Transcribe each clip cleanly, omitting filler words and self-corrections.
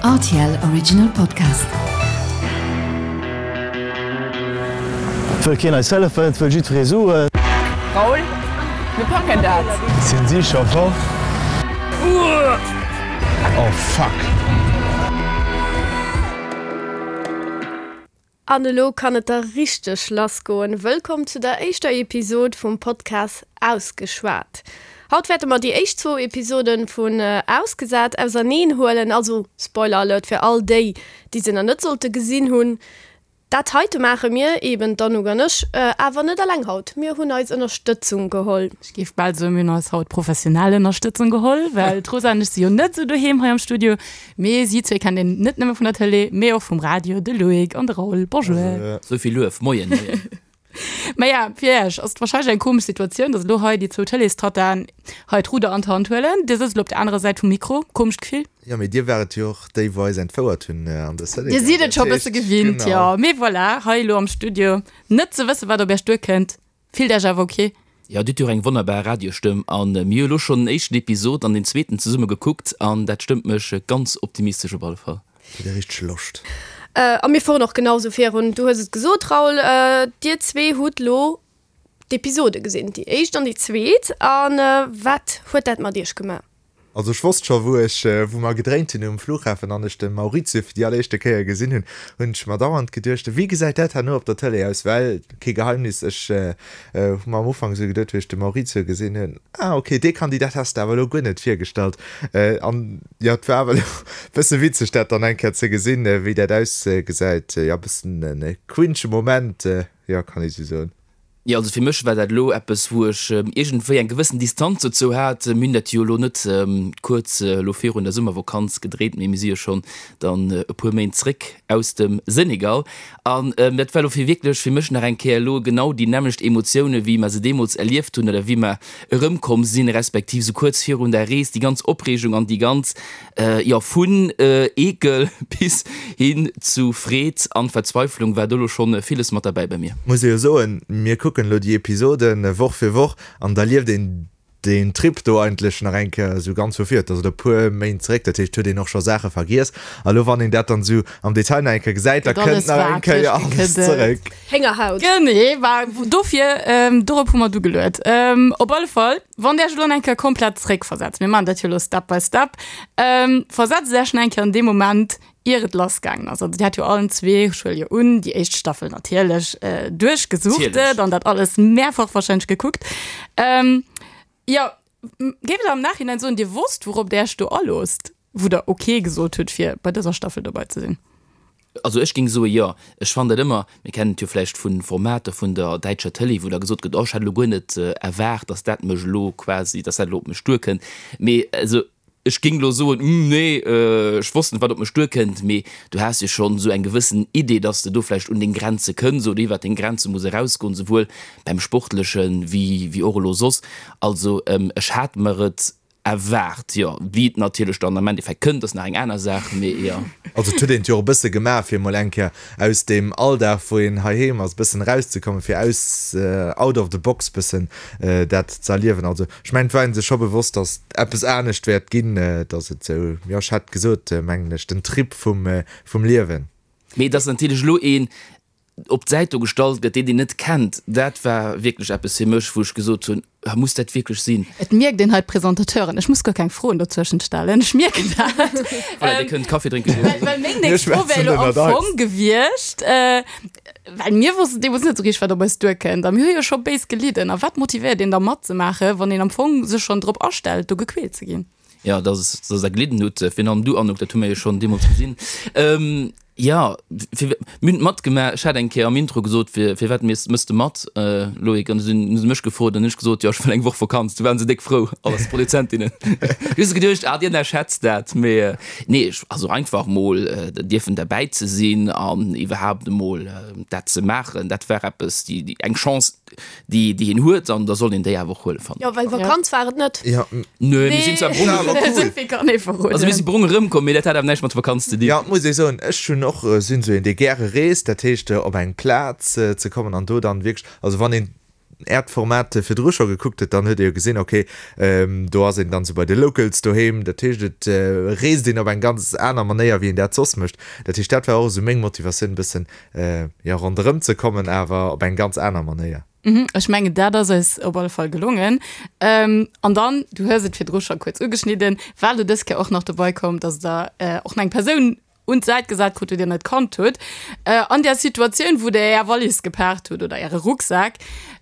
Rtl Original Podcast. Et wëll keen eis hëllefen, et wëll jiddweree Suen. Raoul, mir packen dat! Sinn si scho fort? Oh fuck! An elo kann et da richteg lass goen. Wëllkomm zu der éischter Episod vum Podcast Ausgeschwat. Haut wäerte mer déi éischt zwou Episoden vun Ausgesat auserneen huelen, also Spoiler Alert fir all déi, déi se nach net sollte gesinn hunn. Dat heite maache mir, eben d'Anouk an ech, awer net eleng haut. Mir hunn eis Ënnerstëtzung geholl. Ech géif bal soen, mir hunn eis haut professionell Ënnerstëtzung geholl, well d'Rosa an ech si jo net esou doheem hei am Studio. Mee si zwee kennt een net nëmme vun der Tëlee, mee och vum Radio, de Loïc an de Raoul. Bonjour. Sou vill Luef. Moien, moien. Maja, fir Iech ass et warscheinlech eng komesch Situatioun, datt elo hei déi zwou Tëleestattaen hei d'Rudder an d'Hand huelen. Dir sëtzt elo op der anerer Säit vum Mikro. Komescht Gefill? Jo, mee dir waart et jo och déi, wou eis entfouert hunn an de Senegal. Dir sidd et scho e bësse gewinnt, jo. Mee voilà, hei elo am Studio, net ze wëssen, wat op Iech duerkënnt. Fillt Iech awer ok? Jo, dir hutt jo och eng wonnerbar Radiostëmm an mir hu lo schonn den éischten Episod an den zweeten zesumme gekuckt an dat stëmmt mech ganz optimistesch op alle Fall. Hutt dir richteg Loscht? A mir fueren och genau sou virun. Du hues et gesot, Raoul, dir zwee hutt lo d'Episode gesinn, déi éischt an déi zweet. A wat huet dat mat iech gemaach? Also ech wosst scho wou ech, wou mer gedréint hunn um Flughafen an ech de Maurizio fir déi alleréischte Kéier gesinn hunn, hunn ech mer dauernd geduecht, wéi gesäit dat herno op der Tëlee aus? Well, kee Geheimnis, ech hu mer am Ufank esou geduet, wéi ech de Maurizio gesinn hunn, ah ok, dee Kandidat has de awer elo guer net virgestallt. An jo, et war awer elo e bësse witzeg dat dann eng Kéier ze gesinn, wéi dat ausgesäit. Jo, e bëssen e cringe Moment, jo, kann ee sou soen. Jo, also fir mech war dat elo eppes, wou ech iergendwéi eng gewëssen Distanz dozou hat. Mir hunn dat jo elo net kuerz elo virun der Summervakanz gedréit, mee mir si jo schonn dann e puer Méint zréck aus dem Senegal. An dat war elo fir wierklech fir mech nach eng Kéier elo genau déi nämmlecht Emotioune wéi mer se deemools erlieft hunn oder wéi mer erëmkomm sinn, respektiv esou kuerz virun der Rees, déi ganz Opreegung an déi ganz Jo, vun Eekel bis hin zu Freed an Verzweiflung war do lo schon villes mat derbäi bei mir. Muss ee jo soen, mir kucken elo déi Episoden Woch fir Woch an da lieft een deen Trip do eigentlech nach eng Kéier esou ganz vu vir. Et ass elo e puer Méint zeréck, dat heescht, huet een och scho Saache vergiess. A lo wann een dat dann esou am Detail nach eng Kéier gesäit, da kënnt nach eng Kéier alles zeréck. Héngerhaut. Genee, war dofir, dorop hu mer du geluet. Op alle Fall. Wann der Iech elo eng Kéier komplett zréckversetzt, mir maachen dat jo elo Step by Step, versetzt Iech nach eng Kéier an dee Moment, ier et lassgaangen ass. Also Dir hat jo allen zwee, ech huele jo un, déi éischt Staffel natierlech duerchgesuchtet an dat alles mehrfach wahrscheinlech gekuckt. Jo, géift Der am Nachhinein soen, Dir wosst, wourop Der Iech do aloosst? Wou der ok gesot hutt fir bei dëser Staffel dobei ze sinn? Also ech géing soe jo. Ech fannen dat ëmmer, mir kennen et jo vläicht vu Formater vun der däitscher Tëlee, wou da gesot gëtt, oh ech hat elo guer net erwaart, datt dat mech elo quasi, datt dat elo op mech duerkënnt. Mee also ech géing elo soen, hm nee, ech wosst net wat op mech duerkënnt. Mee du has jo schonn esou eng gewëssen Idee, datt s de do vläicht un deng Grenze kënns oder iwwert deng Grenze muss erausgoen, souwuel beim Sportleche wéi och elo soss. Also ech hat mer et Erwaart, jo. Wéi et natierlech dann am Endeffekt kënnt, ass nach eng aner Saach, mee jo. Also et huet een et jo och e bësse gemaach, fir emol eng Kéier aus deem Alldag, wou een heiheem ass, e bëssen erauszekommen, fir aus, out of the box bëssen dat ze erliewen. Also ech mengen, et war ee sech scho bewosst, datt eppes anescht wäert ginn, datt et esou, jo, ech hat gesot, mengen ech, den Trip vum, vum Liewen. Mee datt natierlech elo een op d'Säit do gestallt gëtt, deen een net kennt, dat war wierklech eppes fir mech, wou ech gesot hunn, Ah, muss dat wierklech sinn? Et mierkt een hei d'Presentateuren, ech muss guer keng Froen dozwëschent stellen, ech mierken dat. Voilà, Dir kënnt Kaffi drénke goen. Well, well meng nächst Fro wär elo am Fong gewiescht, well mir wossten deemools net esou richteg, wat op eis duerkënnt a mir hu jo scho béis gelidden. A wat motivéiert een da matzemaachen, wann een am Fong sech schonn drop astellt, do gequält ze ginn? Jo, dass dass der gelidden hutt, virun allem du Anouk, dat hu mir jo schonn deemools gesinn. Jo, fir mir hunn et matgemaach. Ech hat eng Kéier am Intro gesot, fir firwat méchs de mat, Loïc? An du sinn hu se mech gefrot an hunn ech gesot, jo ech wëll eng Woch Vakanz. Du waren se déck frou, alles d'Produzentinnen. Hu se geduecht, ah déi ënnerschätzt dat. Mee nee, ech also einfach mol dierfen derbäi ze sinn an iwwerhaapt emol dat ze maachen, dat war eppes, déi eng Chance, déi déi een huet an da soll een déi awer och huelen, fannen ech. Jo, well Vakanz war et net. Jo. Nö, mir sinn zwar brong War awer cool. Esou vill kann ee verroden. Also mir si brong erëmkomm, mee dat hat awer näischt mat Vakanz ze dinn. Jo, muss ee soen, ech hunn och, sinn esou een, dee gäre reest, dat heescht op eng Plaz ze kommen an do dann wierklech, also wann een. Äert Format virdru scho gekuckt huet, dann huet ee jo gesinn, ok, do ass een dann esou bei de Locals doheem. Dat heescht, et reest een op eng ganz aner Manéier, wéi een dat soss mécht. Dat heescht, dat war och esou meng Motivatioun, e bëssen, jo, ronderëm ze kommen, awer op eng ganz aner Manéier. Ech mengen, dat ass eis op alle Fall gelongen. An dann, du hues et virdru scho kuerz ugeschnidden, war elo dës Kéier och nach dobei komm, dass Der och nach eng Persoun un d'Säit gesat krut, déi Dir net kannt hutt. An där Situatioun, wou Der Är Wallis gepaakt hutt oder Äre Rucksak,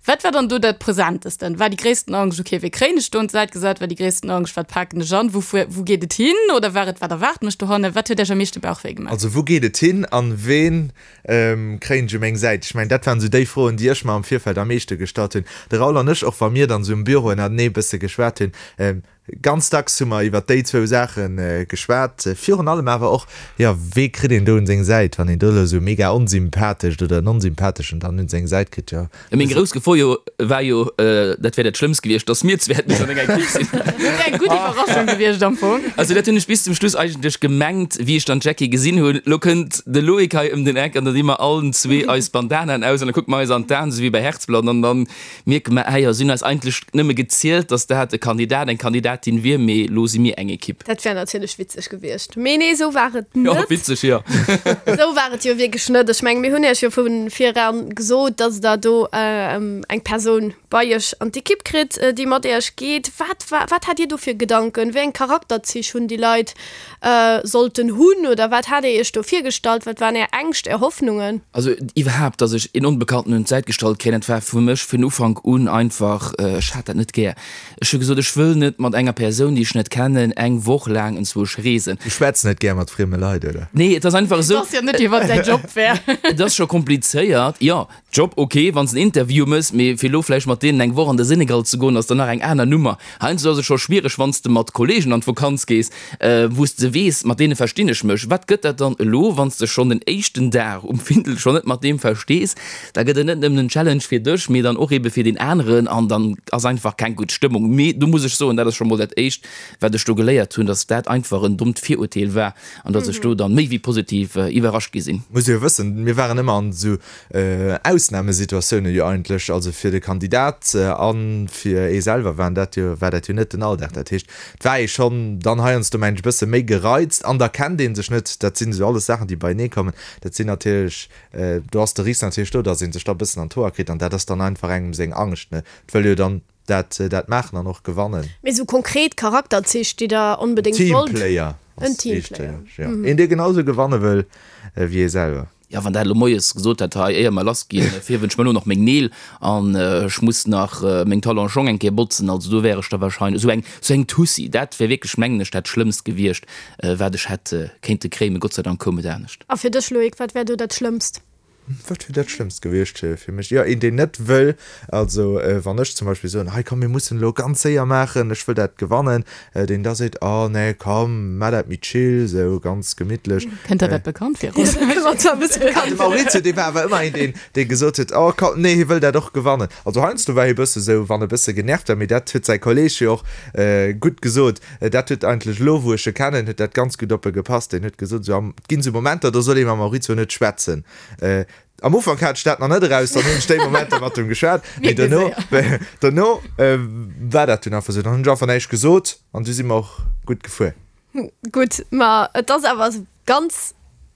wat war dann do dat Presentesten? War déi gréissten Angscht, okay, wéi kréien ech do un d'Säit gesat? War déi gréissten Angscht, wat paken ech an, wou fuer, wou geet et hin? Oder war et, wat erwaart mech dohannen? Wat huet Iech am meeschte Bauchwéi gemaach? Also wou geet et hin an ween kréien ech u meng Säit? Ech mengen, dat waren esou déi Froen, déi ech mer am Virfeld am meeschte gestallt hunn. De Raoul an ech, och wa mir dann esou um Büro ënnertenee e bësse geschwat hunn, ganz dacks hu mer iwwer déi zwou Saache geschwat. Virun allem awer och, jo, wee kritt een do un seng Säit, wann een do elo esou mega onsympathescht oder en onsympatheschen dann un seng Säit kritt, jo. Meng grouss Gefor jo war jo, dat wär dat Schlëmmst gewiescht, dass mir zwee hätten an enger Equipe sinn. Dat wär eng gutt Iwwerraschung gewiescht am Fong. Also dat hunn ech bis zum Schluss eigentlech gemengt, wéi ech dann d'Jackie gesinn hunn. Lo kënnt de Loïc hei ëm den Eck an da di mer allen zwee eis Bandanaen aus an da kucke mer eis an d'Aen, esou wéi bei Herzblatt, an dann mierke mer, ah jo, si hunn eis eigentlech nëmme gezielt, dass dat e Kandidat, eng Kandidatin wier, mee lo si mir eng Equipe. Dat wär natierlech witzeg gewiescht. Mee nee, esou war et net. Jo, witzeg, jo. Esou war et jo wierklech net. Ech mengen, mir hunn Iech jo vu viran gesot, dass Der do eng Persoun bei Iech an d'Ekipp kritt, déi mat Iech geet. Wat war, wat hat Dir do fir Gedanken? Wéi eng Charakterzich hunn déi Leit sollten hunn? Oder wat hat Dir Iech do virgestallt? Wat waren Är Ängscht, Är Hoffnungen? Also iwwerhaapt, dass ech een Onbekannten un d'Säit gestallt kréien, dat war fir mech vun Ufank un einfach, ech hat dat net gär. Ech hu gesot, ech wëll net mat enger Persoun, déi ech net kennen, eng Woch laang enzwousch reesen. Du schwätz net gär mat frieme Leit, oder? Nee, et ass einfach esou. Et ass jo net, wéi wann däi Job wär. Et ass scho komplizéiert, jo. Job, ok, wann s en Interview mëss, mee fir elo vläicht mat deenen eng Woch an de Senegal ze goen, ass dann nach eng aner Nummer. Heiansdo ass et scho schwiereg, wann s de mat Kollegen an d'Vokanz gees, wou s de weess, mat deene verstinn ech mech. Wat gëtt dat dann elo, wann s de schonn den éischten Dag um Findel schonn net mat deem verstees? Da gëtt et net nëmmen en Challenge fir dech, mee dann och ebe fir deen aneren an dann ass einfach keng gutt Stëmmung. Mee do muss ech soen, dat ass scho mol dat éischt, wat ech do geléiert hunn, dass dat einfach en dommt Virurteel war an dass ech do dann méi wéi positiv iwwerrascht gi sinn. Muss jo wëssen, mir waren ëmmer an esou Ausnamesituatiounen jo eigentlech, also fir de Kandidat a fir ee selwer waren dat jo, war dat jo net den Alldag. Dat heescht, et war ee schonn dann heiansdo, mengen ech, e bësse méi gereizt an da kennt ee sech net. Dat sinn esou alles Saachen, déi beienee kommen. Dat sinn natierlech, do ass de Risk natierlech do, datt ee sech da e bëssen an d'Hoer kritt an dat ass dann einfach engem seng Angscht, ne. Et wëll jo dann dat dat maachen an och gewannen. Mee esou konkret Charakterzich, déi Der onbedéngt wollt? Teamplayer ass wichteg, jo. Een, dee genau esou gewanne wëll wéi ee selwer. Jo, wann dat elo moies gesot hätt, hei, éier mer lass ginn, fierwen ech mer elo nach meng Neel an ech muss nach meng Talonschong eng Kéier botzen, also do wär ech da wahrscheinlech esou eng, esou eng Tussi. Dat wär wierklech, mengen ech, dat Schlëmmst gewiescht, wat ech hätt kéinte kréien. Mee Gott sei Dank koum et anescht. A fir dech, Loïc, wat wär do dat Schlëmmst? Wat wier dat Schlëmmst gewiescht fir mech? Jo, een, deen net wëll, also wann ech zum Beispill soen, hei komm, mir mussen elo ganz séier maachen, ech wëll dat gewannen, deen da seet, oh nee, komm, maach dat méi chill, esou ganz gemittlech. Kënnt der dat bekannt vir? De Maurizio, dee war awer ëmmer een, deen, dee gesot huet, oh komm, nee, hie wëll dat och gewannen. Also heiansdo war hie bësse sou, wann e bësse genervt war, mee dat huet säi Kolleeg jo och gutt gesot, Dat huet eigentlech elo, wou ech e kennen, huet dat ganz gutt op e gepasst. Deen huet gesot, esou am, et ginn esou Momenter, do soll ee mam Maurizio net schwätzen. Am Ufank hat ech dat nach net eraus, dann hunn ech déi Momenter mat em geschwat, mee dono, dono war dat dunn einfach esou. Dann hunn ech einfach näischt gesot an du si mer och gutt gefuer. Gutt, ma et ass awer ganz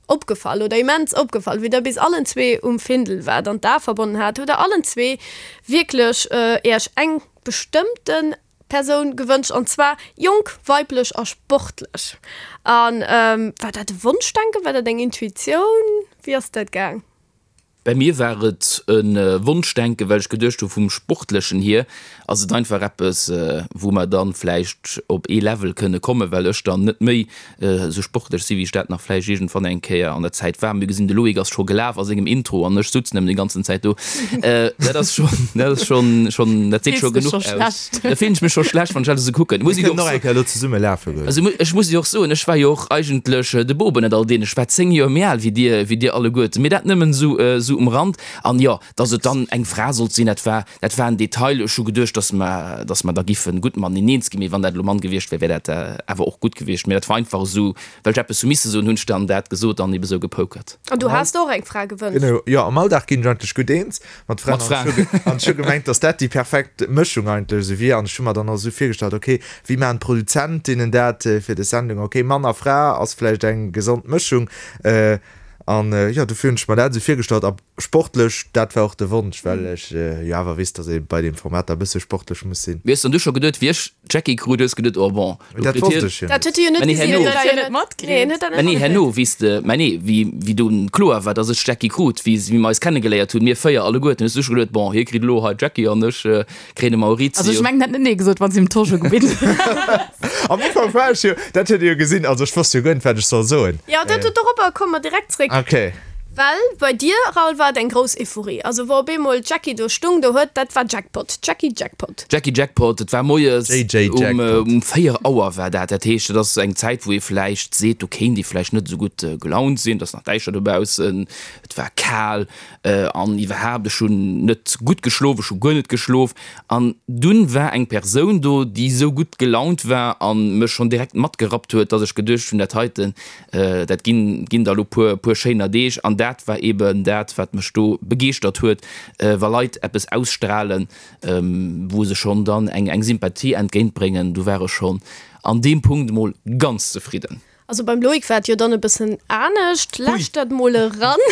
opgefall oder immens opgefall, wéi der bis allen zwee um Findel waart an d'Ae verbonnen hat, hutt der allen zwee wierklech Iech eng bestëmmten Persoun gewënscht, an zwar jonk, weiblech a sportlech. An war dat e Wonschdenken, war dat eng Intuitioun? Wéi ass dat gaang? Bei mir war et e Wonschdenken, well ech geduecht hu vum Sportlechen hier ass et einfach eppes, wou mer dann vläicht op ee Level kënne kommen, well ech dann net méi esou sportlech si wéi ech dat nach vläicht iergendwann eng Kéier an der Zäit war. Mir gesinn, de Loïc ass scho gelaf a sengem Intro an ech sutz nëmmen déi ganzen Zäit do. Dat ass schonn, dat ass schonn, schonn, dat seet scho genuch aus. Da fillen ech mech scho schlecht, wann ech dat esou kucken. Muss ech och nach eng Kéier elo zesumme lafe goen. Also ech muss jo och soen, ech war jo och eigentlech de Boob ënnert all deenen. Ech war 10 Joer méi al wéi dir, wéi dir alleguerten. Mee dat nëmmen esou, esou. esou um Rand. An jo, dass et dann eng Fra sollt sinn, dat war, dat war en Detail. Ech hu geduecht, dass mer, dass mer da giffe gutt mateneen eens ginn, mee wann dat elo Mann gewiescht wär, wär dat awer och gutt gewiescht. Mee dat war einfach esou, well ech eppes hu misse soen, hunn ech dann dat gesot an ebe sou gepokert. An du has der och eng Fra gewënscht? Genau, jo, am Alldag ginn ech eigentlech gutt eens mat Fraen. Mat Fraen. An ech hu gemengt, dass dat déi perfekt Mëschung eigentlech esou wier. An ech hu mer dann och esou virgestallt, okay, wéi maachen d'Produzentinnen dat fir des Sendung? Okay, Mann a Fra ass vläicht eng gesond Mëschung. An jo, dofir hunn ech mer dat esou virgestallt. A sportlech, dat war och de Wonsch, well ech jo awer weess, datt ee bei deem Format da e bësse sportlech muss sinn. Mee hues dann du scho geduet, wéi ech d'Jackie krut, hues geduet, oh bon, lo Dat kritt wosst hien. ech jo Dat net. huet e jo net Mä nee, gesinn, herno. huet dat jo net matkritt. Nee, en huet dat Mä net nee, herno, matkritt. wéi s de, mä nee, wéi, wéi dunn kloer war, datt ech d'Jackie krut, wéi, wéi mer eis kennegeléiert hunn, mir 4 alleguerten, hues du scho geduet, bon, hie kritt elo hei d'Jackie an ech kréien de Maurizio. Also ech mengen, en hätt net nee gesot, wann s him d'Tosch ugebitt hues. Am Ufank war ech jo, dat huet Dir jo gesinn, also ech wosst jo guer net, wat ech soll soen. Jo, dat, doropper komme mer direkt zréck. Okay. Well bei dir, Raoul, war et eng grouss Euphorie. Also wou op eemol d'Jackie do stung, do huet, dat war Jackpot, Jackie Jackpot. Jackie Jackpot, et war moies JJ um, Jackpot. um 4 Auer war dat. Dat heescht, et ass eng Zäit, wou ee vläicht seet, do kéint ee vläicht net esou gutt gelaunt sinn, et ass nach däischter dobaussen, et war kal an iwwerhaapt, ech hunn net gutt geschlof, ech hu guer net geschlof. An dunn war eng Persoun do, déi esou gutt gelaunt war a mech schonn direkt matgerappt huet, dass ech geduecht hunn, dat heiten, Dat ginn, ginn der elo puer, puer schéiner Deeg. An dat war eben dat, wat mech do begeeschtert huet, wa Leit eppes ausstrahlen, wou se schonn dann eng, eng Sympathie entgéintbréngen. Do war ech schonn an deem Punkt emol ganz zefridden. Also beim Loïc war et jo dann e bëssen anescht. Lauschtert mol eran,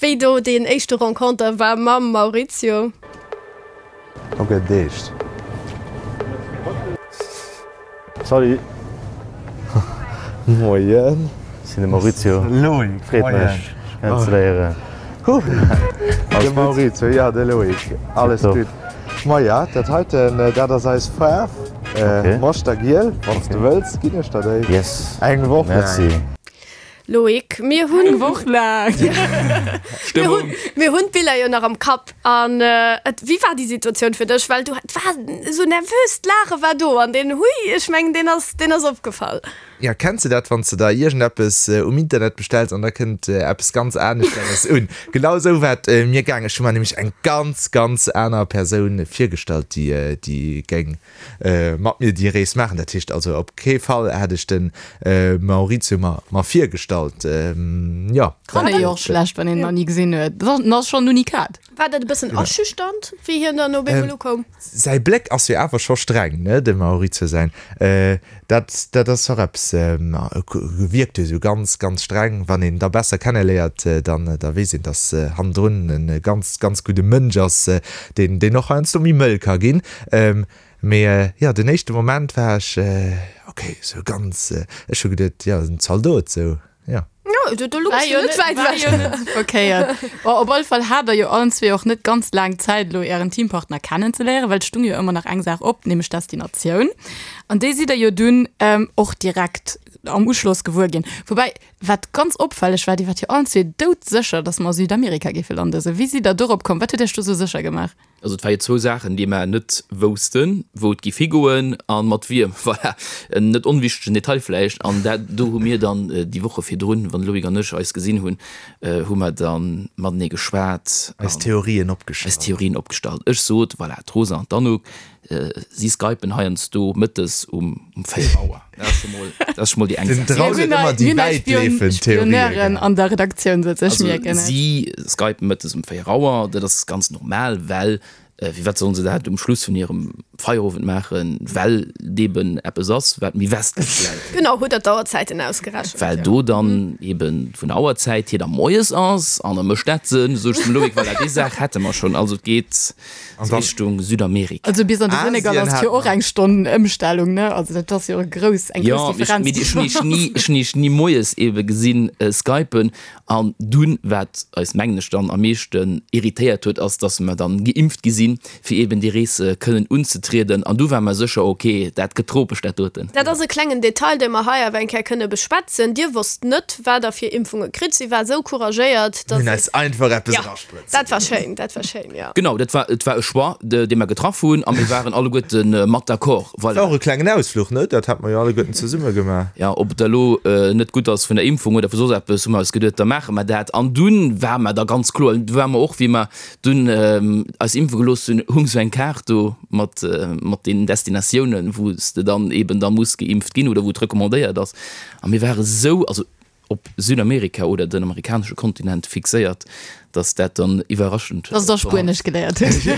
wéi do deen éischte Renconter war mam Maurizio. Ok, deescht. Salut. Moien. Ech sinn de Maurizio. Loïc, Freet mech, dech kennenzeléieren. De Maurizio, jo, de Loïc. Alles gutt. Maja, dat heiten, dat ass eis Faarf. Moschtergiel. Wann s de wëlls, ginn ech der déi. Yes. Eng Woch laang. Merci. Loïc, mir hunn. Eng Woch laang. Stëmmung. Mir hunn d'Biller jo nach am Kapp. An et, wéi war déi Situatioun fir dech? Well du, et war esou nervös, d'Laache war do an deen Hui, ech mengen, deen ass, deen ass opgefall. Ja, kenns de dat, wann s de der iergendeppes um Internet bestells an da kënnt eppes ganz aneschteres un? Genau esou war et mir gaang. Ech hu mer nämlech eng ganz, ganz aner Persoun virgestallt, déi, déi géing mat mir déi Rees maachen. Dat heescht also op kee Fall hätt ech de Maurizio mer mer virgestallt. Jo. Kann ee jo och schlecht, wann een en nach ni gesinn huet. Dat ass schonn en Unikat. War dat e bëssen aschüchternd, wéi hien dann op eemol ukoum? Säi Bléck ass jo awer scho streng, ne, dem Maurizio säin. Dat dat ass och eppes, wierkt jo esou ganz, ganz streng. Wann een da besser kenneléiert, dann da weess een, datt hannendrun e ganz, ganz gudde Mënsch ass, deen deen och heiansdo méi mëll ka ginn. Mee jo, den éischte Moment war ech ok, sou ganz, ech hu geduet, jo, en Zaldot, sou, jo. Jo, do do War louchs jo du net net, wäit war ewech. jo net sou verkéiert. Bon, op alle Fall hat der jo allen zwee och net ganz laang Zäit elo ären Teampartner kennenzeléieren, well et stung jo ëmmer nach eng Saach op, nämlech d'Destinatioun. An déi sidd der jo dunn och direkt am Uschloss gewuer ginn. Woubäi, Wat ganz opfälleg war, Dir waart jo allen zwee doudsécher, dass mer a Südamerika géife landen. Sou, wéi sidd Der dorop komm? Wat huet Iech do sou sécher gemaach? Also et war jo zwou Saachen, déi mer net woussten, wou et giff higoen a mat wiem. Voilà, en net onwichtegen Detail vläicht. An dat do hu mir dann déi Woche virdrun, wann de Loïc an ech eis gesinn hunn, hu mer da matenee geschwat. Eis Theorien opgestallt. Eis Theorien opgestallt. Ech sot, voilà, d'Rosa an d'Anouk, Si skypen heiansdo mëttes um 4 Auer. Dat ass scho mol, dat ass scho mol déi eng Den Saach. Draul huet ëmmer déi wäitleefend Theorien Spioneuren an der Redaktioun sëtzen, ech Also mierken et. si skypen mëttes um 4 Auer, dat ass ganz normal, well firwat sollen se dat um Schluss vun hirem Feierowend maachen, well et eben eppes ass, wat méi westlech läit. Genau, hutt der d'Auerzäiten ausgerechent? Well do dann eben vun der Auerzäit hier da moies ass an da mécht dat Sënn, sot ech zum Loïc, voilà, déi Saach hätte mer schonn. Also et geet. An dann Richtung Südamerika. Also bis an de Senegal Asien ass jo hat och eng Stonn Ëmstellung, ne? Also dat ass jo e grouss, eng grouss Ja, mee Differenz. ech hunn iech ni, ech hunn iech ni moies ebe gesinn skypen. An dunn, wat eis mengen ech dann am meeschten irritéiert huet, ass, dass mer dann geimpft gi sinn. sinn, fir eben déi Rees kënnen unzetrieden. An du war mer sécher, ok, dat gëtt tropesch, dat doten. Dat ass e klengen Detail, dee mer hei awer eng Kéier kënne beschwätzen. Dir wosst net, wat Der fir Impfunge kritt. Si war esou couragéiert, Mir dass hunn si. eis einfach eppes Jo, erasprëtze dat war gelooss. schéin, dat war schéin, jo. Genau, dat war, et war e Choix, dee mer getraff hunn a mir waren alleguerte mat d'accord. Voilà. War och e klengen Ausfluch, ne? Dat hat mer jo alleguerten zesumme gemaach. Jo, ob et da elo net gutt ass vun der Impfung oder vu soss eppes, hu mer eis geduet, da maache mer dat. An dunn war mer da ganz kloer, du war mer och, wéi mer dunn eis impfe gelooss hunn, hung sou eng Kaart do mat, mat den Destinatiounen, wou s de dann eben da muss geimpft ginn oder wou et recommandéiert ass. A mir ware sou, also op Südamerika oder den amerikanesche Kontinent fixéiert, dass dat dann iwwerraschend Dass der Spuenesch geléiert hutt. Jo,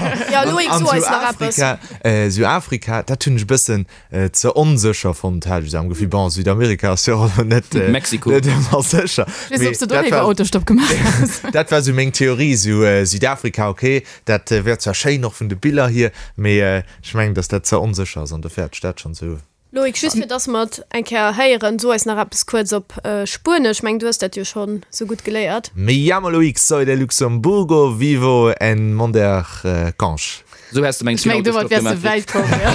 Loïc, An so eis nach eppes. Süafrika, Süafrika, dat hunn ech e bëssen ze onsécher fonnt, hat ech esou am Gefill. Bon, Südamerika ass jo och elo net, Mexiko. net ëmmer sécher. Weess Mee ob s de do dat léiwer war, Autostopp gemaach häss. dat war esou meng Theorie, esou Südafrika, okay, dat wär zwar schéin och vun de Biller hier, mee ech mengen, dass dat ze onsécher ass an dofir hat ech dat schonn esou. Loïc, just fir dass mer et eng Kéier héieren, so eis nach eppes kuerz op Spuenesch. Ech mengen, du hues dat jo schonn sou gutt geléiert. Me llamo Loïc, soy de Luxemburgo, vivo en Mondercange. Sou häss de meng Ech mengen, domat wäers de wäit komm, jo.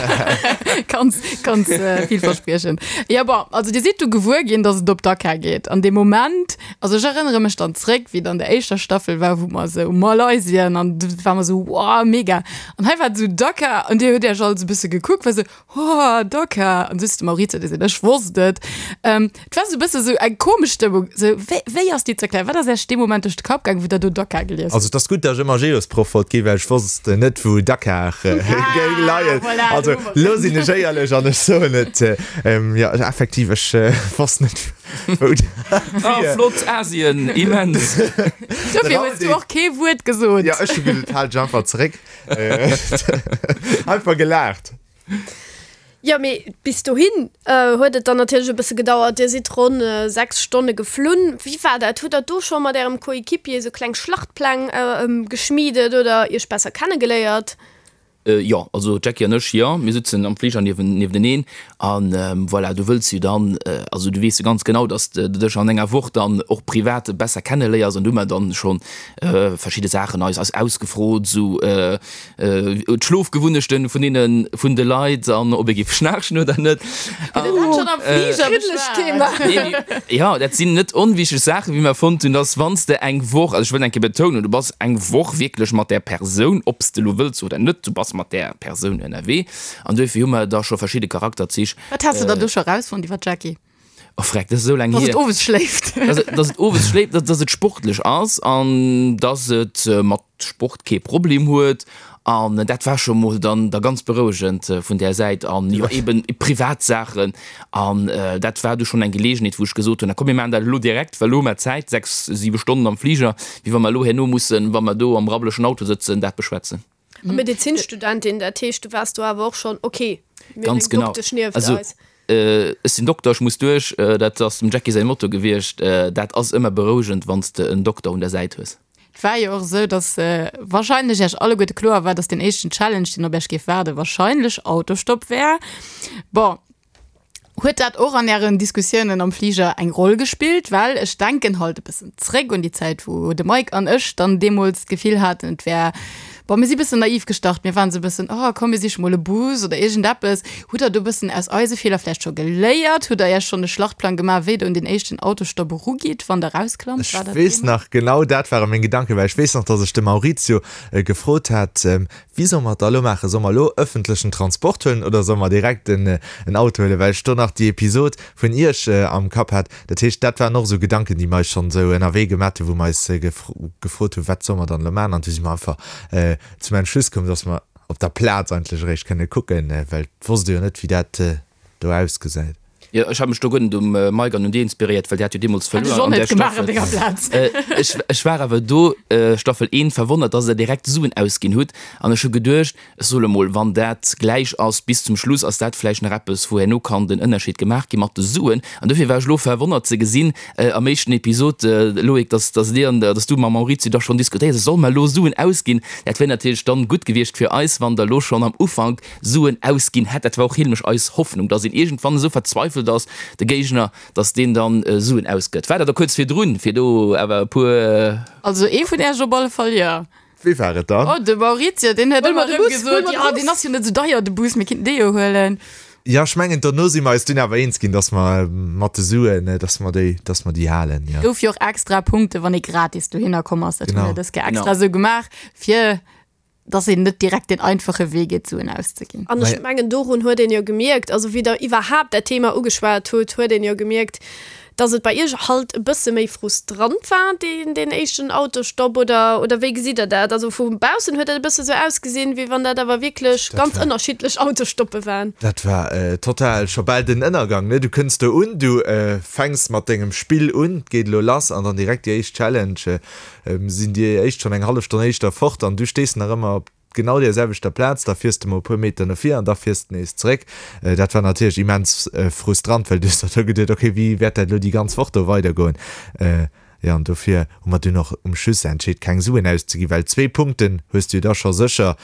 Ganz, ganz villverspriechend. Jo, bon, also dir sidd du gewuer ginn, dass et op Dakar geet. An dee Moment, also ech erënnere mech dann zréck, wéi et an der éischter Staffel war, wou mer esou Malaysien an du war mer esou, wow, mega. An hei war et esou Dakar an dir hutt iech all esou e bësse gekuckt, war esou, Oh, Dakar! An du hues de Maurizio gesinn, ech wosst et. Ähm, et war sou e bësse sou eng komesch Stëmmung. Sou, wéi, wéi ass déi ze erklären? Wat ass Iech dee Moment duerch de Kapp gaangen, wou Der do Dakar gelies Also hutt? et ass gutt, datt ech ëmmer Geosproff wollt ginn, well ech wosst net, wou Dakar géing leien. Voilà, Also do hu mer lo sinn ech éierlech an ech soen et, jo, effektiv, ech wosst net, wou dat Ah, wier. flott, Asien, immens! Dofir hues du och kee Wuert gesot. Jo, ech hu gesot, hal dech einfach zeréck. Einfach gelaacht. Jo, mee bis dohin huet et dann natierlech e bësse gedauert. Dir sidd ronn 6 Stonne geflunn. Wéi war dat? Hutt der do scho mat ärem Coéquipier esou kleng Schlachtpläng geschmiedet oder iech besser kennegeléiert? Jo, also d'Jackie an ech, jo, mir sutzen am Fliger niewteneen an voilà, du wëlls jo dann, also du weess jo ganz genau, dass de dech an enger Woch dann och privat besser kenneléiers an du hu mer dann schonn verschidde Saachen eis eis ausgefrot, esou d'Schlofgewunnechten vun deene vun de Leit an ob ee géif schnaarchen oder net. Hutt Dir dat schonn am Fliger beschwat? Jo, dat sinn net onwichteg Saachen, wéi mer fonnt hunn, dass wann s de eng Woch, also ech wëll eng Kéier betounen, du bass eng Woch wierklech mat där Persoun, ob s de elo wëlls oder net, du bass mat där Persoun ënnerwee an duerfir hu mer da scho verschidde Charakterzich. Wat has de dann do scho erausfonnt iwwer d'Jackie? Oh freck, dat ass esou laang Dass hier. et owes schléift. Dass et, dass et owes schléift, dass, dass et sportlech ass an dass et mat Sport kee Problem huet. An dat war scho mol dann da ganz berouegend vun där Säit. An jo, eben privat Saachen. An dat war du schonn eng Geleegenheet, wou ech gesot hunn, na komm mir maachen dat elo direkt, well elo hu mer Zäit, 6, 7 Stonnen am Fliger, wéi wa mer elo herno mussen, wa mer do am rabbelechen Auto sëtzen, dat beschwätzen. A Medezinstudentin, dat heescht, du waars do awer och schonn, ok, mir hunn Ganz eng genau. Doktesch nieft Also, eis. ech sinn Dokter, ech muss duerch, dat ass dem Jackie säi Motto gewiescht. Dat ass ëmmer berouegend, wann s de en Dokter un der Säit hues. Et war jo och esou, dass wahrscheinlech Iech alleguerte kloer war, dass deen éischten Challenge, deen op Iech géif waarden, wahrscheinlech Autostopp wär. Bon, Huet dat och an Ären Diskussiounen am Fliger eng Roll gespillt? Well ech denken halt e bëssen zréck un déi Zäit, wou de Mike an ech dann deemools d'Gefill haten, et wär, bon, mir si bëssen naiv gestart, mir waren esou e bëssen, oh komm, mir siche mol e Bus oder iergendeppes. Hutt Der do e bëssen aus eise Feeler vläicht scho geléiert? Hutt Der Iech schonn e Schlachtplang gemaach, wéi Der un deen éischten Autostopp erugitt, wann Der erausklammt? Ech War dat weess Thema? nach, genau dat ware meng Gedanken, well ech weess nach, dass ech de Maurizio gefrot hat, Wéi solle mer et da elo maachen? Solle mer elo ëffentlechen Transport huelen oder solle mer direkt en Auto huelen? Well ech do nach déi Episod vun Iech am Kapp hat. Dat heescht, dat waren och esou Gedanken, déi mer eis schonn esou ënnerwee gemat hunn, wou mer eis gefrot hunn, wat solle mer dann elo maachen? An du si mer einfach zum Entschluss komm, dass mer op der Plaz eigentlech eréischt kënne kucken, well et wosst ee jo net, wéi dat do ausgesäit. Jo, ech hat mech do guer net um Mike an un dir inspiréiert, well dir hat jo deemools Hätt ech verluer och an net där gemaach an Staffel. denger Plaz. Ech, ech war awer do, Staffel 1, verwonnert, dass der direkt Suen ausginn hutt. An ech hu geduecht, ech soll emol, wann dat gläich ass bis zum Schluss, ass dat vläicht nach eppes, wou herno kann den Ënnerscheed gemaach gi mat de Suen. An dofir war ech elo verwonnert ze gesinn, am éischten Episod, Loïc, dass, dass dir an, dass du mam Maurizio da schonn diskutéiert hutt, solle mer elo Suen ausginn? Dat wär natierlech dann gutt gewiescht fir eis, wann der elo schonn am Ufank Suen ausginn hätt. Dat war och heelmech eis Hoffnung, dass een iergendwann esou verzweifelt ass, de Géigner, dass deen dann Suen ausgëtt. War dat da kuerz virdrun, fir do awer e puer. Also ee vun Äech op alle Fall, jo. Wéi war et dann? Oh, de Maurizio, deen huet Huel ëmmer mer de erëm Bus, huel gesot, mer de jo, Bus. deen ass jo net esou deier, de Bus, mir kinnten dee jo huelen. Jo, ech mengen, dono si mer eis dunn awer eens ginn, dass mer mat de Suen, dass mer déi, dass mer déi halen, jo. Gouf jo och extra Punkte, wann ee gratis dohinner komm ass. Dat hu Genau. mir dës Kéier extra esou gemaach, fir dass een net direkt deen einfache Wee geet, Suen auszeginn. An ech mengen, dorun huet een jo gemierkt, also wéi Der iwwerhaapt dat Thema ugeschwat hutt, huet een jo gemierkt, dass et bei Iech halt e bësse méi frustrant war, deen, deen éischten Autostopp, oder, oder wéi gesitt Der dat? Also vu baussen huet dat e bësse sou ausgesinn, wéi wann dat awer wierklech ganz ënnerschiddlech Autostoppe waren. Dat war total scho bal den Ënnergang, ne? Du kënns do un, du fänks mat dengem Spill un, 't geet elo lass an dann direkt déi éischt Challenge, sinn déi éischt schonn eng hallef Stonn éischter fort an du stees nach ëmmer op genau där selwechter Plaz, da fiers de mol e puer Meter no vir an da fiers de nees zeréck. Dat war natierlech immens frustrant, well du hues der do geduet, okay, wéi wäert dat elo déi ganz Woch do weidergoen? Jo, an dofir hu mer dunn och um Schluss entscheet, keng Suen auszeginn, well zwee Punkten hues du jo da scho sécher,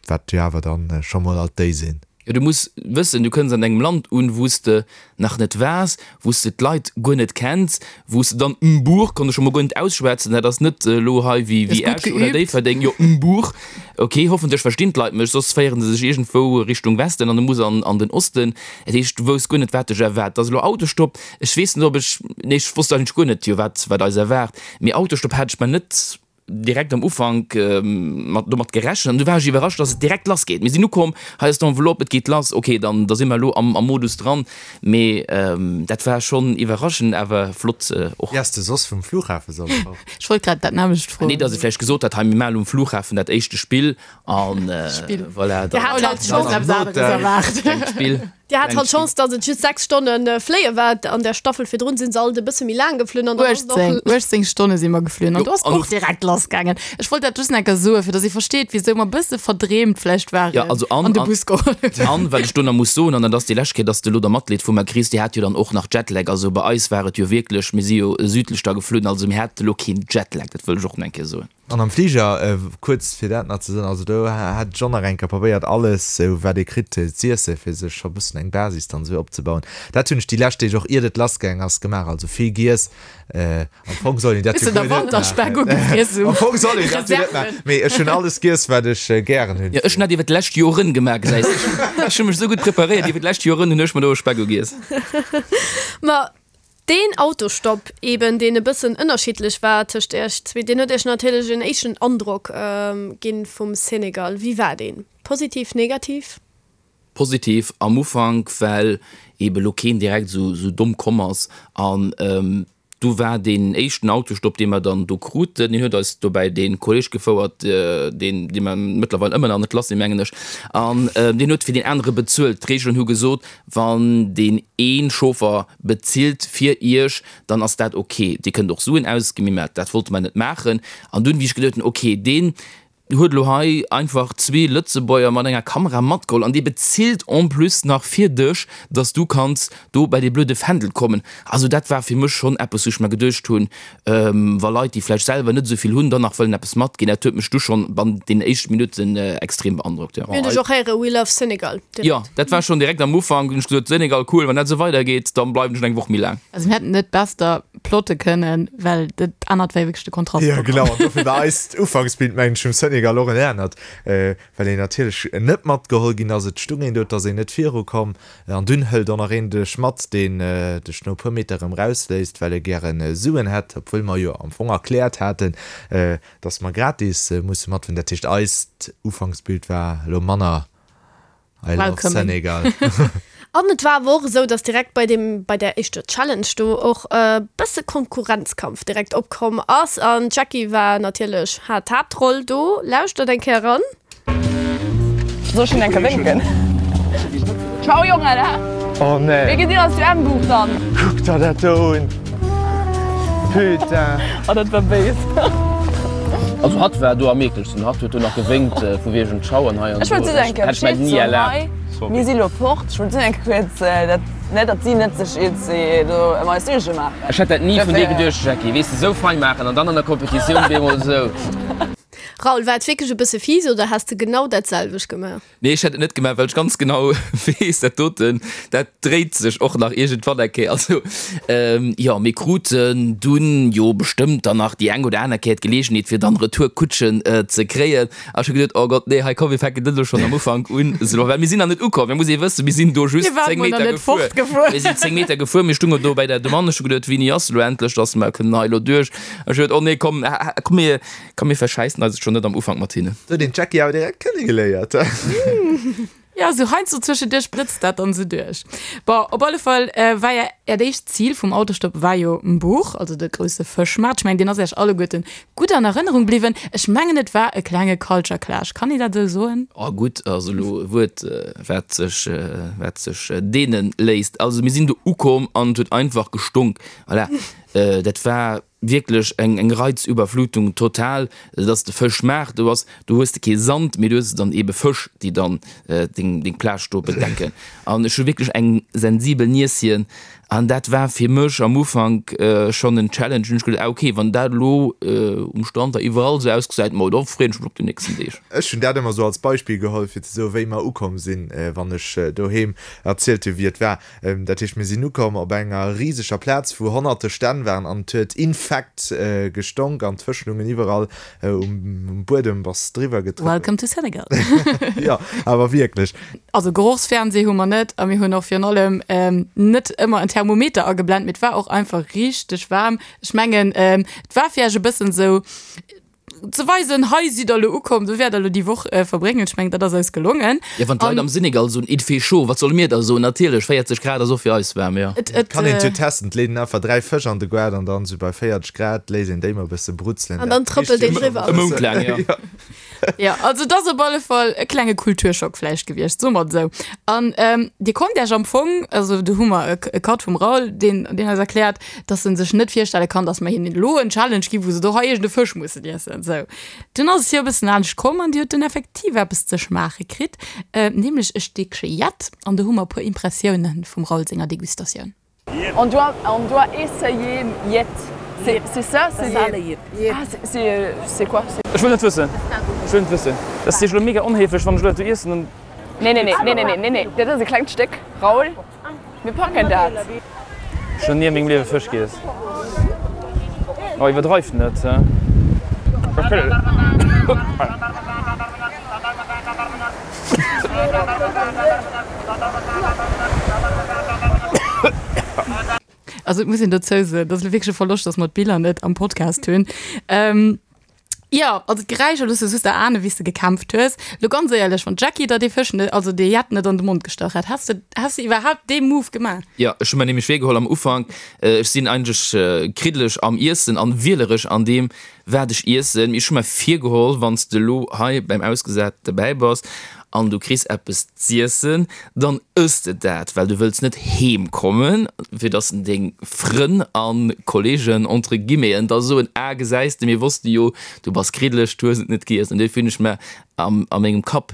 wat jo awer dann scho mol alt déi sinn. Jo, du muss wëssen, du kënns an engem Land un, wou s de nach net waars, wou s de d'Leit guer net kenns, wou s de dann Mbour, konnt ech scho mol guer net ausschwätzen, dat ass net elo hei wéi Hues gutt Esch oder geübt. Déifferdeng, jo Mbour, ok, hoffentlech verstinn d'Leit mech, soss féiere se sech iergendwou Richtung Westen an du muss an an den Osten. Dat heescht, du wousst guer net, wat dech erwaart. Et ass elo Autostopp, ech weess net, ob ech, nee, ech wosst eigentlech guer net, jo, wat wat eis erwaart, mee Autostopp hat ech mer net direkt am Ufank mat domat gerechent an du war ech iwwerrascht, dass et direkt lass geet. Mir sinn ukomm, hei ass d'Enveloppe, et geet lass, ok, dann da si mer elo am am Modus dran. Mee dat war schonn iwwerraschend, awer flott och. Wéi ass de soss vum Flughafe solle fort? Ech wollt grad dat nämmlecht froen. Nee, dass e vläicht gesot hat, hei mir maachen um Flughafen dat éischte Spill an Spill. voilà, Dir dann hat halt d'Chance, Eppes aneres erwaart. klengt Spill. Dir hat halt d'Chance, dass et just 6 Stonne fléie war. An der Staffel virdrun sinn se alt e bësse méi laang geflunn an dann ass et och 18, 18 Stonne si mer geflunn an Jo, do ass an och direkt lass gaangen. Ech wollt dat just nach eng Kéier soen, fir dass ee versteet, wisou mer e bësse verdreemt vläicht waren Ja, also an, an de an, Bus geholl hunn. an wat ech do nach muss soen, an dat ass déi lescht Kéier, dass de elo da Matleed vu mer kriss, Dir hat jo dann och nach Jetlag. Also bei eis war et jo wierklech, mir si jo südlech da geflunn, also mir hate lo keen Jetlag, dat wëll ech och nach eng Kéier soen. An am Fliger, kuerz fir dat nach ze soen, also do hat ech och nach eng Kéier probéiert alles sou wat ee kritt z'iesse fir sech scho bëssen eng Basis dann esou opzebauen. Dat hunn ech déi lescht Deeg och iert et lass gaang ass gemaach, also vill giess. Am Fong soll een dat jo Bëssen guer der net maachen. Wanterspeck ugefriess um Am Fong soll een dat jo net maachen, mee ech hunn alles giess wat ech gären hunn. Jo, ech hunn dat iwwer d'lescht Joren gemaach, gesäis de. Ech hu mech esou gutt preparéiert, iwwer d'lescht Joren hunn ech mer do e Speck ugiess. Ma Deen Autostopp eben, deen e bëssen ënnerschiddlech war tëscht iech zwee, deen huet iech natierlech en éischten Androck ginn vum Senegal. Wéi war deen? Positiv, negativ? Positiv am Ufank, well eben lo keen direkt esou domm komm ass an du war deen éischten Autostopp, dee mer dann do kruten, deen huet eis dobäi dee Kolleg gefouert, deen, dee mer mëttlerweil ëmmer nach net lass sinn, mengen ech, an deen huet fir deen anere bezuelt. D'Reegelen hu gesot, wann deen ee Chauffer Bezilt fir iech, dann ass dat ok. Dir kënnt och Suen ausginn, mee dat wollte mer net maachen. An dunn, wéi ech geduet hunn, ok, deen huet elo hei einfach zwee Lëtzebuerger mat enger Kamera matgeholl an dee bezilt en plus nach fir dech, dass du kanns do bei dee blöde Fändel kommen. Also dat war fir mech schonn eppes, wou ech mer geduecht hunn, wa Leit, déi vläicht selwer net esou vill hunn, dann nach wëllen eppes matginn. Dat huet mech du schonn bannent deenen éischte Minutten extrem beandrockt, jo. Mir hunn dech och héiere We love Senegal direkt. Jo, dat war schonn direkt am Ufank, hunn ech gesot, Senegal, cool, wann dat esou weidergeet, dann bleiwen ech nach eng Woch méi laang. Also mir hätten net besser plotte kënnen, well dat anert war jo wierklech de Kontrast. Jo, genau, an dofir war eist Ufanksbild, mengen ech, vum Senegal och en anert, well een natierlech net matgeholl ginn ass. Et stung een do, et ass een net virukomm. An dunn hëlt och nach een dech mat, deen dech no e puer Meter erëm rausléisst, well e gäre Suen hätt, obwuel mer jo am Fong erkläert haten, dass mer gratis musse matfueren. Dat heescht, eist Ufanksbild war elo manner I love Senegal. An et war awer och esou, dass direkt bei deem, bei där éischter Challenge do och e bësse Konkurrenzkampf direkt opkomm ass. An d'Jackie war natierlech, hat d'Haaptroll do. Lauschtert eng Kéier eran. Soll ech hinnen eng Kéier wénken? Ciao Jongen, he? Oh nee. Mir gesinn eis zu Embuch dann. Kuck der dat do un. Putain. Oh dat war béis. Also hatt war do am ekelsten, hatt huet do nach gewénkt vu wegen Ciao an hei an Ech do. wollt just eng Kéier Hätt ech mer Bescheed ni soen erlaabt. hei. Sorry. Mir si lo fort. Ech wollt just eng Kéier kuerz dat, ne, datt si net sech iergendwéi do ëm eis Suerge maachen. Ech hätt dat ni vun dir Dofir. geduecht Jackie, weess de, sou fein maachen an dann an der Competitioun bemol sou. Raoul, war et wierklech e bësse fies oder häss de genau dat selwecht gemaach? Nee, ech hätt et net gemaach, well ech ganz genau weess, dat doten, dat dréit sech och nach iergendwann eng Kéier. Also, jo, mir kruten dunn jo bestëmmt dann nach déi eng oder aner Kéier d'Geleegenheet, fir dann Retourkutschen ze kréien. A ech hu geduet, oh Gott, nee, hei komm, mir fänken net elo schonn am Ufank un esou, well mir sinn nach net ukomm. Mir muss ee wëssen, mir sinn do just 10 Meter gefuer. Mir sinn 10 Meter gefuer, mir stungen do bei der Demande. Ech hu geduet, wéini ass elo endlech, dass mer kënnen hei elo duerch? Ech hu geduet, oh nee, komm, komm, mir, Komm mir verschäissen eis et schon net am Ufank mat hinnen. Huet een d'Jackie awer direkt kennegeléiert. Jo, sou heiansdo zwëschenduerch blëtzt dat dann sou duerch. Bon, op alle Fall war ja äert éischt Zil vum Autostopp war jo Mbour, also de grousse Fëschmaart. Ech mengen, deen ass äech alleguerten gutt an Erënnerung bliwwen. Ech mengen, et war e klenge Culture Clash, kann een dat esou soen? Oh, gutt ass elo e Wuert, wat sech, wat sech deene léisst. Also mir sinn do ukomm an et huet einfach gestonk. Voilà, dat war. Wierklech eng eng Reizüberflutung total, dass de Fësch maach, do ass, do hues de kee Sand, mee du hues dann eebe Fësch, déi dann deng deng Plage do bedecken. An ech hu wierklech eng sensibel Nieschen an dat war fir mech am Ufank schonn en Challenge. Hunn ech geduet, ah ok, wann dat elo um Strand da iwwerall esou ausgesäit, ma da freeën ech mech op déi nächsten Deeg. Ech hunn dat ëmmer esou als Beispill geholl, fir ze soen, wéi mer ukomm sinn, wann ech doheem erzielt hunn, wéi et war. Dat heescht, mir sinn ukomm op enger riseger Plaz, wou honnerte Stänn waren an et huet infekt gestonk an d'Fësch lungen iwwerall um Buedem, bass driwwer getrëppelt. Welcome to Senegal. Jo, awer wierklech. Also Gerochsfernseh hu mer net a mir hunn och virun allem net ëmmer en Thermometer ageblent, mee et war och einfach richteg waarm. Ech mengen, et war fir iech e bëssen esou, ze weisen, hei sidd der elo ukomm, do wäert der elo déi Woch verbréngen. Ech mengen, dat ass eis gelongen. Jo, wann d'Leit am Senegal soen, il fait chaud, wat solle mir da soen? Natierlech, 40 Grad ass och fir eis waarm, jo. Et kann een et jo testen, et leet een einfach 3 Fësch an de Goart an dann esou bei 40 Grad léisst een déi mol e bësse brutzelen. An dann trëppelt een driwwer. E Mount laang, jo. Jo, also et ass op alle Fall e klenge Kulturschock vläicht gewiescht, soe mer et esou. An Dir konnt Iech am Fong, also do hu mer e Cut vum Raoul, deen eis erkläert, dass en sech net virstelle kann, dass mer hinnen elo en Challenge ginn, wou se do hei iergend e Fësch mussen iessen. Sou, dunn ass et jo e bëssen anescht komm an Dir hutt dunn effektiv eppes ze schmaache kritt, nämlech e Stéckche Jett. An do hu mer e puer Impressiounen vum Raoul senger Degustatioun. On doit, on doit essayer Jett. C'est, c'est ça? C'est ah, c'est, c'est quoi? Ech wëll net wëssen. Ech wëll net wëssen. Dat ass jo elo mega onhéiflech, wann ech elo dat do iessen, dann. Nee, nee, nee, nee, nee, nee, nee, dat ass e klengt Stéck, Raoul. Mir packen dat. Ech hunn ni a mengem Liewe Fësch giess. Oh, iwwerdreift net. Also et muss een dozou soen, dat ass elo wierklech e Verloscht, dass mer d'Biller net am Podcast hunn. Jo, also d'Geräischer looss de just erahnen, wéi s de gekämpft hues. Lo ganz éierlech, wann d'Jackie der dee Fësch net, also dee Jett net an de Mond gestach hätt, häss de, häss de iwwerhaapt dee Move gemaach? Jo, ech hu mer nämlech virgeholl am Ufank, ech sinn eigentlech kriddeleg am Iessen an wielerech an deem wat ech iessen, mee ech hu mer virgeholl, wann s de elo hei beim Ausgesat dobäi bass an du kriss eppes z'iessen, dann ëss de dat, well du wëlls net heem kommen, fir dass deng Frënn a Kollegen, entre guillemeten, da soen, ah gesäis de, mir wosste jo, du bass kriddeleg, du hues et net giess. An duerfir hunn ech mer a mengem Kapp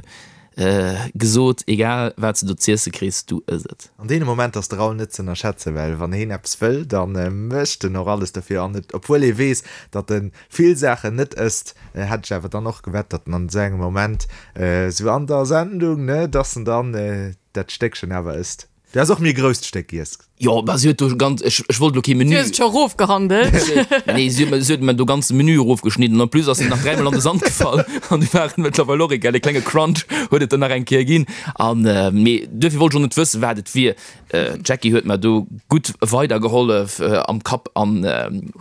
gesot, egal wat s de do z'iesse kriss, du ëss et. An deene Momenter ass de Raoul net z'ënnerschätzen, well wann heen eppes wëll, da mécht en och alles dofir. An et, obwuel ee weess, datt e vill Saachen net ësst, hätt ech awer dann och gewett, datt en an esou engem Moment, esou an der Sendung, ne, dass en dann dat Stéckchen awer ësst. Du häss och méi e grousst Stéck giess. Jo, bah, si huet do ganz, ech, ech wollt elo kee Menü. Du hues et scho erofgehandelt. Nee, si huet mer, si huet mer do ganze Menü erofgeschnidden. En plus ass en nach dräimol an de Sand gefall an du war et mëttlerweil och egal. E klenge Crunch huet et dann nach eng Kéier ginn. An, mee duerfir wollt ech och net wëssen, wat et wier. D'Jackie huet mer do gutt weidergehollef am Kapp an.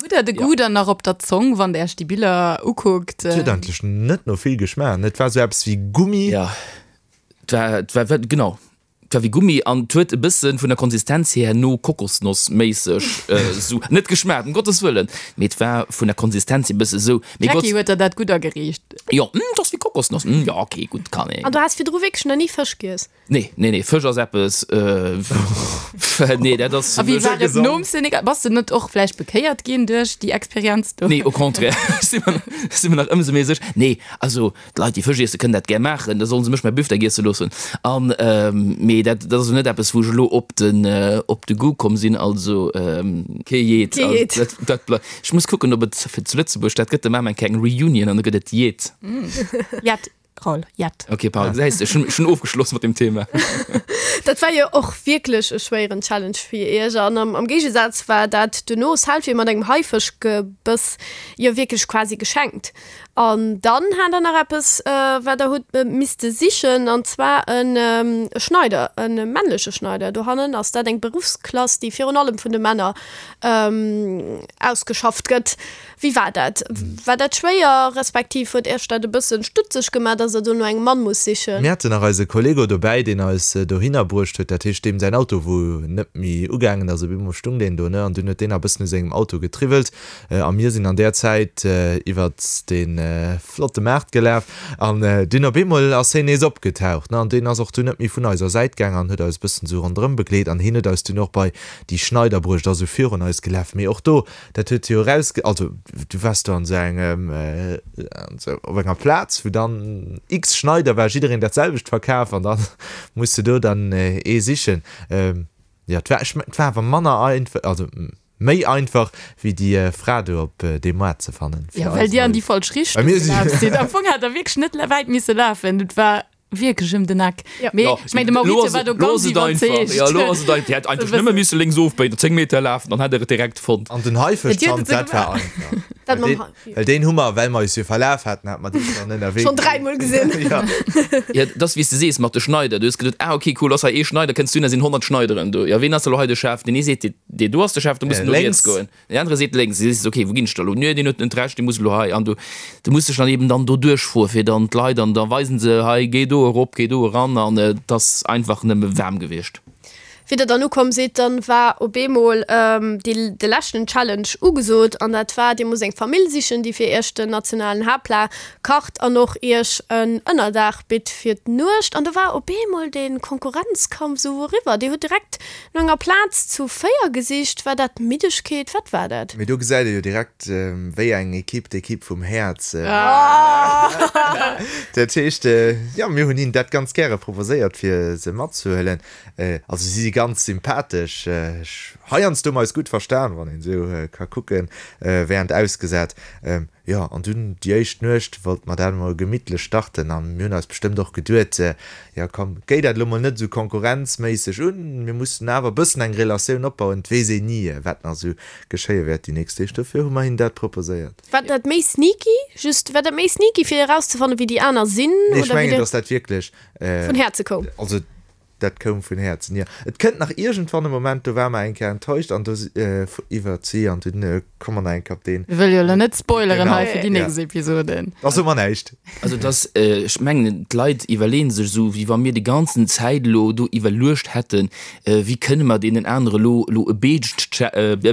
Hutt der de Goût dann nach op der Zong, wann der iech déi Biller ukuckt? Et huet eigentlech net no vill geschmaacht, et war sou eppes wéi Gummi. Jo, et war, et war, genau, et war wéi Gummi an et huet e bësse vun der Konsistenz hier no Kokosnoss méisseg sou, net geschmaacht, ëm Gottes Wëllen, mee et war vun der Konsistenz hier e bësse sou. D'Jackie huet der dat gutt ageriicht. Jo, et ass wéi Kokosnoss. Kokosnoss, hm, jo, okay, gutt, kann een. An du has virdru wierklech nach ni Fësch giess? Nee, nee, nee, Fësch ass eppes, nee, dat ass. A wéi war et nom Senegal? Bass de net och vläicht bekéiert ginn duerch déi Experienz do? Nee, au contraire, ech si mer, ech si mer nach ëmsou méi sécher. Nee, also d'Leit, déi Fësch iessen, kënnen dat gär maachen, da solle se mech mäi Büftek iesse loossen. An, mee dat, dat ass elo net eppes, wou ech elo op den, op de Goût komm sinn, also kee Jeet. Kee Jeet. Dat, dat blei-, ech muss kucken, ob et fir zu Lëtzebuerg, dat gëtt de Mamer eng kleng Reunion an da gëtt et Jeet. Jett. Raoul, jett. Ok, pardon, gesäis de, ech hunn, ech hunn ofgeschloss mat dem Thema. Dat war jo och wierklech e schwéieren Challenge fir iech. An am, am Géigesaz war dat duerno Selfie mat engem Haifëschgebëss jo wierklech quasi geschenkt. An dann hat der nach eppes, wat der hutt misste sichen, an zwar en e Schneider, e männleche Schneider. Dohannen ass dat eng Beruffsklass, déi virun allem vun de Männer ausgeschafft gëtt. Wéi war dat? War dat schwéier, respektiv huet Iech dat e bëssen stutzeg gemaach, dass Der do no engem Mann musst sichen? Mir haten nach eise Kollego dobäi, deen eis dohinner bruecht huet, dat heescht deem säin Auto wou net méi ugaangen ass. Op eemol stung deen do, ne, an dunn huet deen nach e bëssen u sengem Auto getriwwelt a mir sinn an där Zäit iwwert dee flotte Maart gelaf an dunn op eemol ass heen nees opgetaucht, ne, an deen ass och dunn net méi vun eiser Säit gaang an huet eis e bëssen esou ronderëm begleet an heen huet eis dunn och bei déi Schneider bruecht, ass esou virun eis gelaf, mee och do Dat huet jo eraus, also du waars do an esou engem, an esou op enger Plaz, wou dann x Schneider war, jiddereen dat selwecht verkaf an dann muss de do dann ee sichen. Jo, et war, ech mengen, et war awer manner einfach, also méi einfach wéi déi Fra do op deem Moart ze fannen. Jo, well dir an déi falsch Richtung gelaf sidd. Am Fong hätt der wierklech net wäit misse lafen. Et war Wierklech ëm den Eck. Ja. Mee ech meng, de Maurizio war do ganz iwwerzeegt. Ja, lo ass et einfach. Dir hätt einfach nëmme misse lénks ofbéien, 10 Meter lafen, dann hätt der et direkt fonnt. An den Haifëschzant, dat war einfach. Dat mam Hai. Well deen hu mer, well mer eis jo verlaf haten, hate mer dee schonn ënnerwee. Schonn dräimol gesinn. Ja. Ja, dat ass wéi s de sees mat de Schneider. Du hues geduet, ah okay, cool, ass hei ee Schneider, kënns du hin, da sinn 100 Schneideren do. Ja, ween ass elo hei de Chef? Deen ee seet, dee do ass de Chef, do muss en no riets goen. Deen anere seet lénks, du sees, ok, wou ginn ech da elo? Nö, deen huet net Recht, dee muss elo hei. An du, du muss dech dann eben dann do duerchfroe fir dann d'Leit an da weisen se, hei géi do erop, géi do eran an et ass einfach nëmme waarm gewiescht. Wéi der dann ukomm sidd, dann war op eemol déi, de leschten Challenge ugesot an dat war, dir musst eng Famill sichen, déi fir iech den nationalen Haaptplat kacht an och iech en Ënnerdaach bitt fir d'Nuecht. An do war op eemol dee Konkurrenzkampf esou eriwwer. Dir hutt direkt No enger Plaz zu 4 gesicht, war dat Middegkeet? Wat war dat? Mee do gesäit ee jo direkt, wéi eng Ekipp d'Ekipp vum Häerz war. Dat heescht, jo, mir hunn hinnen dat ganz gäre proposéiert, fir se matzehuelen. Also si si ganz sympathesch. Ech, heiansdo hu mer eis gutt verstan, wann een esou ka kucken, während ausgesat. Jo, an dunn déi éischt Nuecht wollte mer dat emol gemittlech starten a mir hunn eis bestëmmt och geduet, jo komm, géi dat elo mol net esou konkurrenzméisseg un, mir mussen awer e bëssen eng Relatioun opbauen, et weess een ni, wat nach esou geschéie wäert déi nächst Deeg. Dofir hu mer hinnen dat proposéiert. War dat méi sneaky? Just, war dat méi sneaky fir erauszefannen, wéi déi aner sinn? Nee, ech mengen, datt dat wierklech. Vun Häerze koum. Also Dat koum vun Häerzen, jo. Et kënnt nach iergendwann e Moment, do ware mer eng Kéier enttäuscht an do si iwwert si an dunn komme mer nach eng Kéier op deen. Mir wëlle jo elo net spoileren hei fir déi nächst Episoden. Da soe mer näischt. Also et ass, ech mengen, d'Leit iwwerleeën sech esou, wéi wa mir déi ganzen Zäit elo do iwwerluecht hätten, wéi kënne mer deenen anere elo elo e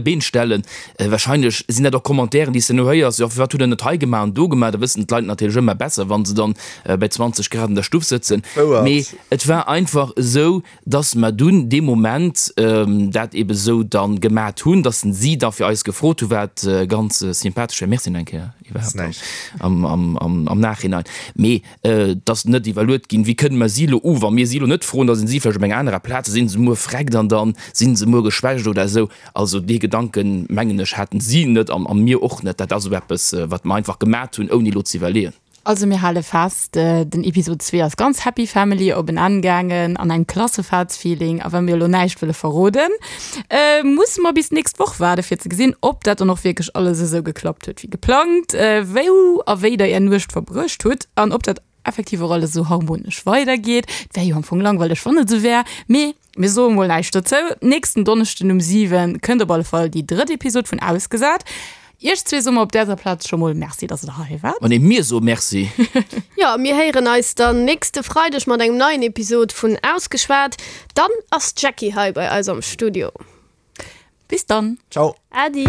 Been stellen. Wahrscheinlech sinn dat och Commentairen, déi s de elo héiers, jo firwat hutt der net hei gemaach an do gemaach. Da wëssen d'Leit natierlech ëmmer besser, wa se dann bei 20 Grad an der Stuff sëtzen. Mee Et war einfach esou, dass mer dunn dee Moment dat ebe esou da gemat hunn, dass si da fir eis gefrot hu wat ganz sympathesch war, Merci nach eng Kéier iwwerhaapt am Nachhinein, mee et ass net iwwerluet ginn, wéi kënne mer si elo u, wa mir si elo net froen, da sinn si vläicht op enger anerer Plaz, da si se muer vreckt an da si se muer geschwächt oder esou. Also dee Gedanken, mengen ech, haten si net a mir och net. Dat ass esou eppes, wat mer einfach gemat hunn, ouni elo ze iwwerleeën. Also mir hale fest, den Episod 2 ass ganz Happy Family op en Enn gaangen an engem Klassefaartsfeeling. A wa mir elo näischt wëlle verroden, musse mer bis d'nächst Woch waarde fir ze gesinn, ob dat dann och wierklech alles esou geklappt huet wéi geplangt, wou a wéi der är Nuecht verbruecht hutt an ob dat effektiv och alles esou harmonesch weidergeet. Et wär jo am Fong langweileg wann et esou wär, mee Mir soe mol näischt dozou. Nächsten Donneschden um 7 kënnt op alle Fall déi drëtt Episod vun Ausgesat. Iech zwee soe mer op däser Plaz scho mol Merci, dass der hei waart. Ma nee, mir soe Merci. Jo, mir héieren eis dann nächste Freideg mat engem neien Episod vun Ausgeschwat. Dann ass d'Jackie hei bei eis am Studio. Bis dann. Ciao. Äddi.